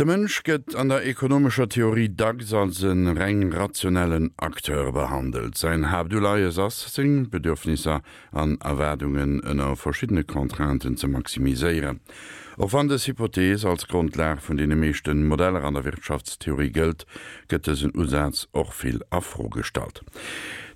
De Mënsch gëtt an der ekonomescher Theorie dacks als e reng rationellen Acteur behandelt. Säin Haaptuleies ass, seng Bedürfnisser an Erwaardungen ënner verschiddene Contrainten ze maximiséieren. Och wann dës Hypothees als Grondlag vun deene meeschte Modeller an der Wirtschaftstheorie gëllt, gëtt dësen Usaz och vill a Fro gestallt.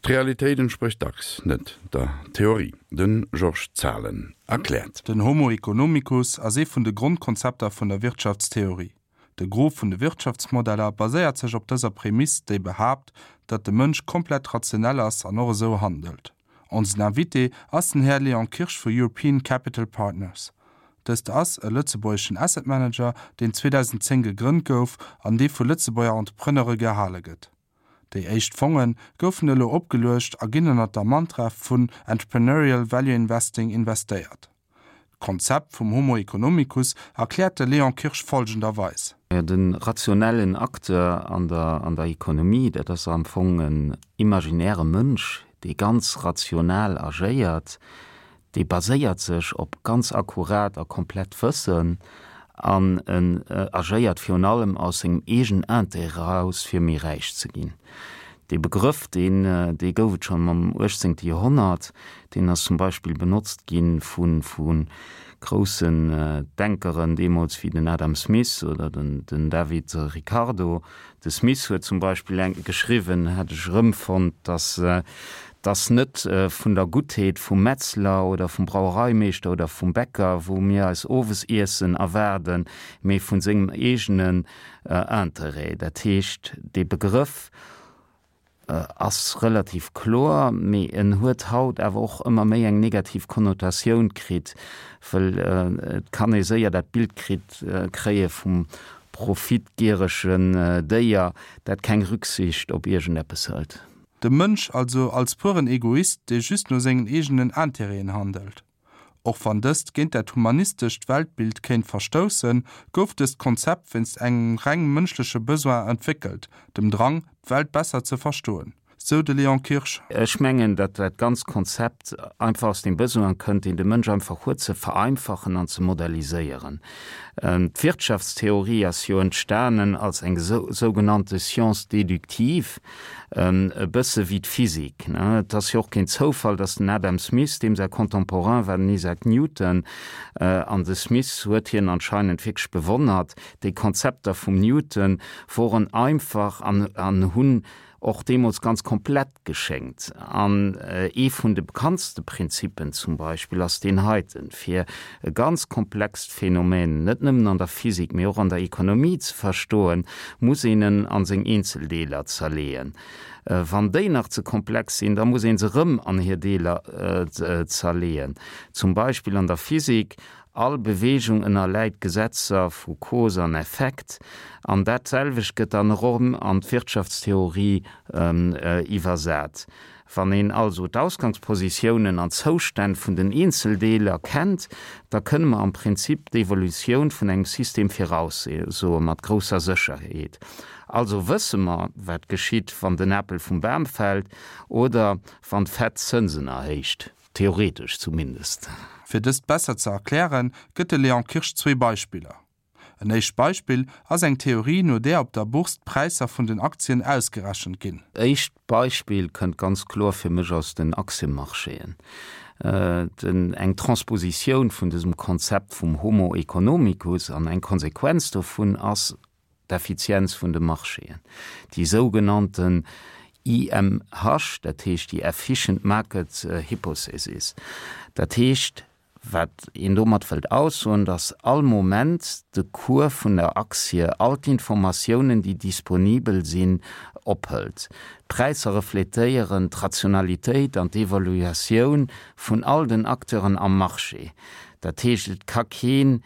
D'Realitéit entsprécht dacks net der Theorie. De Georges Zahlen erkläert. Den Homo economicus ass ee vun de Grondkonzepter vun der Wirtschaftstheorie. De Gros vun de Wirtschaftsmodeller baséiert sech op dëser Prämiss, déi behaapt, datt de Mënsch komplett rationell ass an och esou handelt. Onsen Invité ass den Här Léon Kirsch vu European Capital Partners. Dëst ass e lëtzebuergeschen Asset Manager, deen 2010 gegrënnt gouf an dee vu Lëtzebuerger Entrepreneure gehale gëtt. Déi éischt Fonge goufen elo opgeluecht a ginn ënnert der Mantra vun Entrepreneurial Value Investing investéiert. D'Konzept vum Homo economicus erkläert de Léon Kirsch folgenderweis. De rationellen Acteur an der an der Economie, dat ass am Fong en imaginäre Mënsch, dee ganz rational agéiert, Dee baséiert sech op ganz akkurat a komplett Wëssen an en agéiert virun allem aus sengem eegenen Intérêt eraus, fir méi räich ze ginn. Dee Begrëff, deen, dee gouf et schonn am uechtzéngte Joerhonnert. Deen ass zum Beispill benotzt gi vu, vu groussen Denkeren deemools wéi den Adam Smith oder den, den David Ricardo. De Smith huet zum Beispill eng geschriwwen, hat ech erëmfonnt, dass dass net vun der Guttheet vum Metzler oder vum Brauereimeeschter oder vum Bäcker, wou mir eis Owesiessen erwaarden, mee vun sengem eegenen Interêt. Dat heescht, dee Begrëff ass relativ kloer, mee en huet haut awer och ëmmer méi eng negativ Konnotatioun kritt, wëll et kann ee séier dat Bild kritt kréie vum profitgieregen Déier, dat keng Rücksicht op iergendeppes hëlt. De Mënsch also als pueren Egoist, dee just no sengen eegenen Intérêten handelt. Och wann dëst géint dat humanistescht Weltbild kéint verstoussen, gouf dëst Konzept wéinst engem reng mënschleche Besoin entwéckelt, dem Drang, d'Welt besser ze verstoen, sou de Léon Kirsch. Ech mengen, datt dat ganzt Konzept einfach aus dem Besoin kënnt, deen de Mënsch einfach huet, ze vereinfachen an ze modelliséieren. D'Wirtschaftstheorie ass jo entstanen als eng sougenannte Science déductive, e bësse wéi d'Physik. Et ass jo och keen Zoufall, datt den Adam Smith, deem säi Contemporain war den Isaac Newton, an de Smith huet hien anscheinend wierklech bewonnert, déi Konzepter vum Newton woren einfach an hunn och deemools ganz komplett geschéngt. An ee vun de bekanntste Prinzippen zum Beispill ass deen heiten, Fir e ganz komplext Phänomen net nëmmen an der Physik, mee och an der Ekonomie ze verstoen, muss een en an seng Eenzeldeeler zerleeën. Wann déi nach ze komplex sinn, da muss een se erëm an hir Deeler zerleeën. Zum Beispill an der Physik, All Beweegung ënnerläit Gesetzer vu Cause an Effekt, an dat selwecht gëtt dann erëm an d'Wirtschaftstheorie iwwersat. Wann een also d'Ausgangspositiounen an d'Zoustänn vun den Eenzeldeeler kennt, da kënne mer am Prinzip d'Evolutioun vun engem System viraussoe mat grousser Sécherheet. Also wësse mer, wat geschitt, wann den Apel vum Bam fält oder wann d'Fed d'Zënsen erhéicht. Theoretesch zumindest. Fir dëst besser ze erklären, gëtt de Léon Kirsch zwee Beispiller. En éischt Beispill ass eng Theorie, no där op der Bourse d'Präisser vun den Aktien ausgerechent ginn. Éischt Beispill kënnt ganz kloer fir mech aus den Aktiemarchéen. Den eng Transpositioun vun dësem Konzept vum Homo economicus an eng Konsequenz dovun ass d'Effizienz vun de Marchéen, déi sougenannten EMH, dat heescht déi Efficient Market Hypothesis. Dat heescht, wat een domat wëllt aussoen, datt all Moment de Cours vun der Aktie all d'Informatiounen, déi disponibel sinn, ophëlt. D'Präisser refletéieren d'Rationalitéit an d'Evaluatioun vun all den Acteuren am Marché. Dat heescht, et ka keen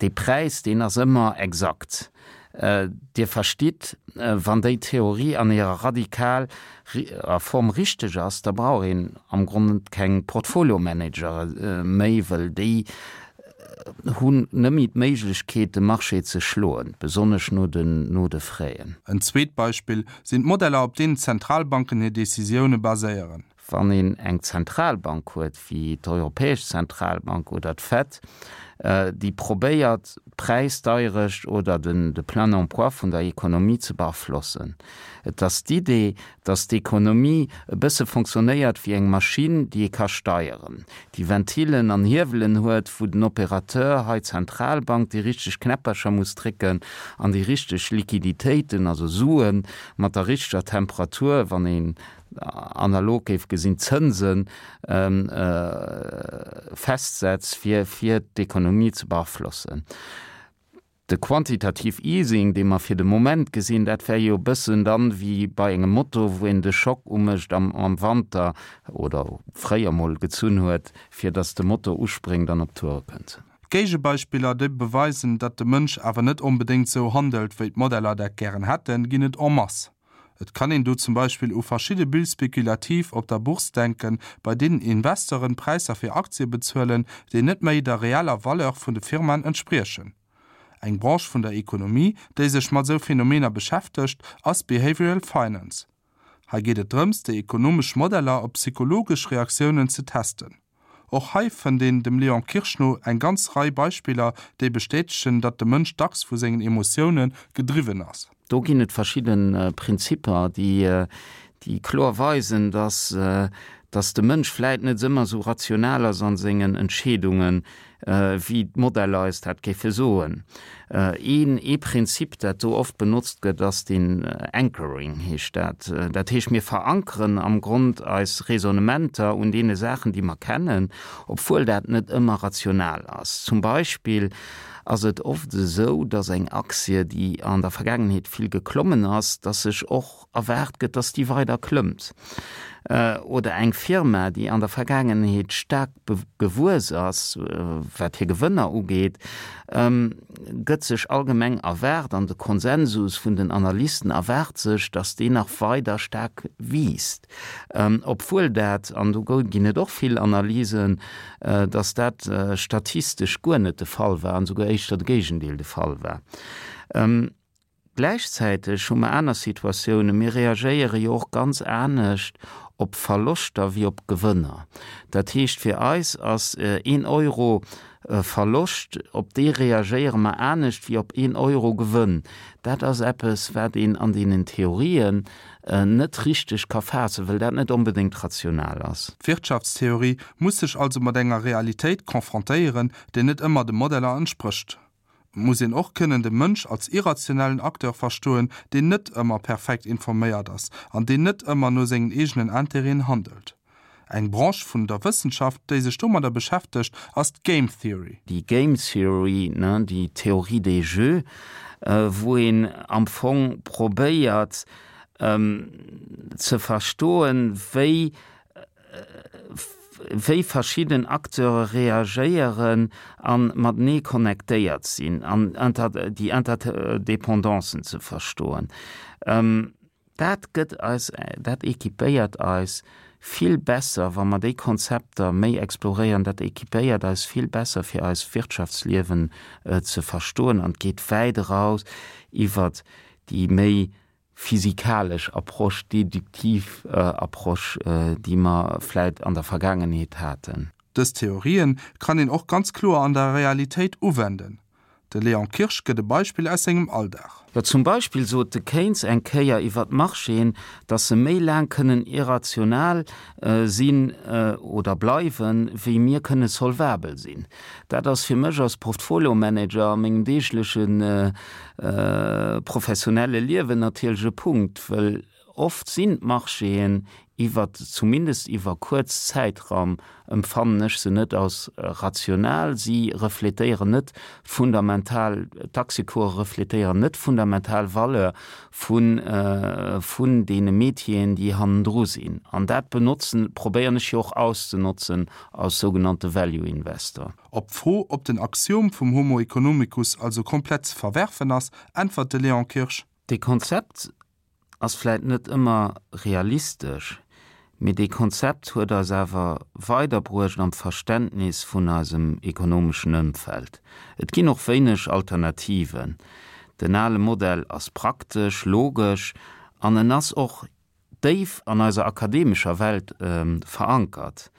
Dee Präis, deen ass ëmmer exakt. Dir verstitt, wann déi Theorie an hirer radikal er Form richteg ass, da brauch een am Grond keng Portfoliomanager méi, wëll déi hunn net méi d'Méiglechkeet, de Marché ze schloen, besonnesch no den, no de Fräen. En zweet Beispill sinn d'Modeller, op deenen d'Zentralbanken hir Decisioune baséieren. Wann een eng Zentralbank huet, wéi d'Europäesch Zentralbank oder d'Fed, déi probéiert d'Präisdeierecht oder de Plein emploi vun der Ekonomie ze beaflossen. Et ass d'Idee, datt d'Ekonomie e bësse fonctionnéiert wéi eng Maschinn, déi ee ka steieren, déi Ventilen an Hiewelen huet, wou den Opérateur, hei d'Zentralbank, déi richteg Knäppercher muss drécken an déi richteg Liquiditéiten, also Suen, mat der richteger Temperatur, wann een analog géif gesinn, d'Zënse festsetzt, fir fir d'Ekonomie ze beaflossen. De Quantitative Easing, dee mer fir de Moment gesinn, dat wär jo e bëssen dann wéi bei engem Moto, wou een de Schock umécht am am Wanter oder fréier mol gezunn huet, fir datt de Moto uspréngt an op d'Toure kënnt. Géigebeispiller, déi beweisen, datt de Mënsch awer net onbedéngt sou handelt, wéi d'Modeller dat gären hätten, ginn et en masse. Et kann een do zum Beispill u verschidde Bulles spéculatives op der Bourse denken, bei deenen Investoren Präisser fir Aktie bezuelen, déi net méi der reeller Valeur vun de Firmaen entspriechen. Eng Branche vun der Ekonomie, déi sech mat esou Phänomener beschäftegt, ass Behavioral Finance. Hei geet et drëms, déi ekonomesch Modeller op psychologesch Reaktiounen ze testen. Och hei fënnt een dem Léon Kirsch no eng ganz Rei Beispiller, déi bestätegen, datt de Mënsch dacks vu sengen Emotioune gedriwwen ass. Do ginn et verschidde Prinzipper, déi kloer weisen, datt datt de Mënsch vläit net ëmmer esou rational ass a sengen Entscheedungen, wéi d'Modeller eis dat géife soen. Een ee Prinzip, dat do oft benotzt gëtt, ass den Anchoring, heescht dat. Dat heescht, mir verankeren am Grond eis Raisonnementer un deene Saachen, déi mer kennen, obwuel dat net ëmmer rational ass. Zum Beispill ass et oft esou, dass eng Aktie, déi an der Vergaangenheet vill geklommen ass, dass sech och erwaart gëtt, dass déi weider klëmmt, oder eng Firma, déi an der Vergaangenheet staark gewuess ass, wat hir Gewënner ugeet, gëtt sech allgemeng erwaart, an de Konsensus vun den Analysten erwaart sech, dass déi nach weider staark wiisst, obwuel dat, an do ginn et och vill Analysen, dass dat statistesch guer net de Fall war an esouguer éischter de Géigendeel de Fall war. Gläichzäiteg hu mer aner Situatiounen. Mir reagéiere jo och ganz anescht op Verloschter wéi op Gewënner. Dat heescht, fir eis ass een Euro Verloscht, op dee reagéiere mer anescht wéi op een Euro Gewënn. Dat ass eppes, wat een an deenen Theorien net richteg ka faassen, well dat net onbedéngt rational ass. D'Wirtschaftstheorie muss sech also mat enger Realitéit confrontéieren, déi net ëmmer de Modeller entsprécht. Et muss een och kënnen de Mënsch als irrationellen Acteur verstoen, deen net ëmmer perfekt informéiert ass an deen net ëmmer no sengen eegenen Intérêten handelt. Eng Branche vun der Wëssenschaft, déi sech domadder beschäftegt, ass d'Game Theory. Déi Game Theory, déi Théorie des jeux, wou een am Fong probéiert ze verstoen, wéi wéi verschidden Acteure reagéieren a matenee connectéiert sinn an déi Interdependancen ze verstoen. Dat gëtt eis, dat équipéiert eis vill besser, wa mer déi Konzepter méi exploréieren, dat équipéiert eis vill besser fir eist Wirtschaftsliewen ze verstoen an geet wäit eraus iwwert déi méi physikalesch Approche, deduktiv Approche, déi mer vläit an der Vergaangenheet haten. Dës Theorien kann een och ganz kloer an der Realitéit uwenden. De Léon Kirsch gëtt e Beispill aus sengem Alldag. Jo, zum Beispill sot de Keynes eng Kéier iwwer d'Marchéen, datt se méi laang kënnen irrational sinn oder bleiwen, wéi mir kënne solvabel sinn. Dat ass fir mech als Portfoliomanager a mengem deegleche professionelle Liewen natierlech e Punkt, wëll oft sinn d'Marchéen iwwer, zumindest iwwer kuerz Zäitraum, empfannen ech se net als rational. Si refletéieren net fundamental, d'Aktiecourse refletéieren net fundamental Valeur vun, vun deene Métieren, déi hannendru sinn. An dat benotzen, probéieren ech jo och auszenotzen als sougenannte Value Investor. Op d'Fro, ob den Axiom vum Homo economicus also komplett ze verwerfen ass, äntwert de Léon Kirsch. Dee Konzept ass vläit net ëmmer realistesch, mee dee Konzept huet eis awer weiderbruecht am Verständnis vun eisem ekonomeschen Ëmfeld. Et ginn och wéineg Alternativen. Den ale Modell ass praktesch, logesch an en ass och. déif an eiser akademescher Welt verankert.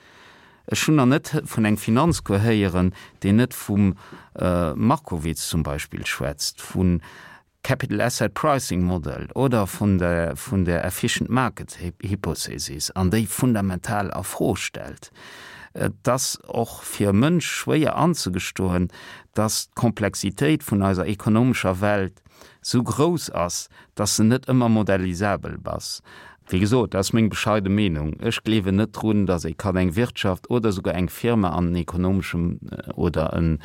Ech hunn nach net vun engem Finanzcours héieren, deen net vum Markowitz zum Beispill schwätzt, vun Capital Asset Pricing Model oder vun der vun der Efficient Market Hypothesis an déi fundamental a Fro stellt. Et ass och fir e Mënsch schwéier anzegestoen, dass d'Komplexitéit vun eiser ekonomescher Welt sou grouss ass, dass se net ëmmer modellisabel bass. Wéi gesot, dat ass meng bescheide Meenung. Ech gleewen net drun, dass ee kann eng Wirtschaft oder souguer eng Firma an en ekonomeschem oder en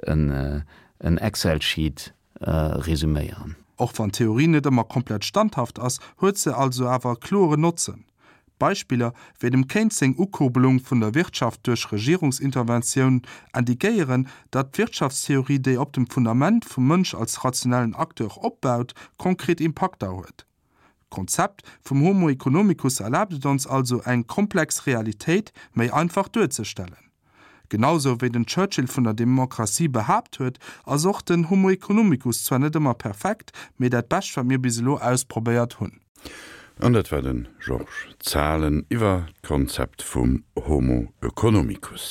en Excel-Sheet resüméieren. Och wann d'Theorie net ëmmer komplett standhaft ass, huet se also awer e kloren Notzen. Beispiller wéi dem Keynes seng Ukurbelung vun der Wirtschaft duerch Regierungsinterventioun indiquéieren, datt d'Wirtschaftstheorie, déi op dem Fundament vum Mënsch als rationellen Acteur opbaut, konkret Impakter huet. D'Konzept vum Homo economicus erlaabt et ons also, eng komplex Realitéit méi einfach duerzestellen. Genau sou wéi den Churchill vun der Demokratie behaapt huet, ass och den Homo economicus zwar net ëmmer perfekt, mee dat Bescht wat mir bis elo ausprobéiert hunn. An dat war de Georges Zahlen iwwer d'Konzept vum Homo economicus.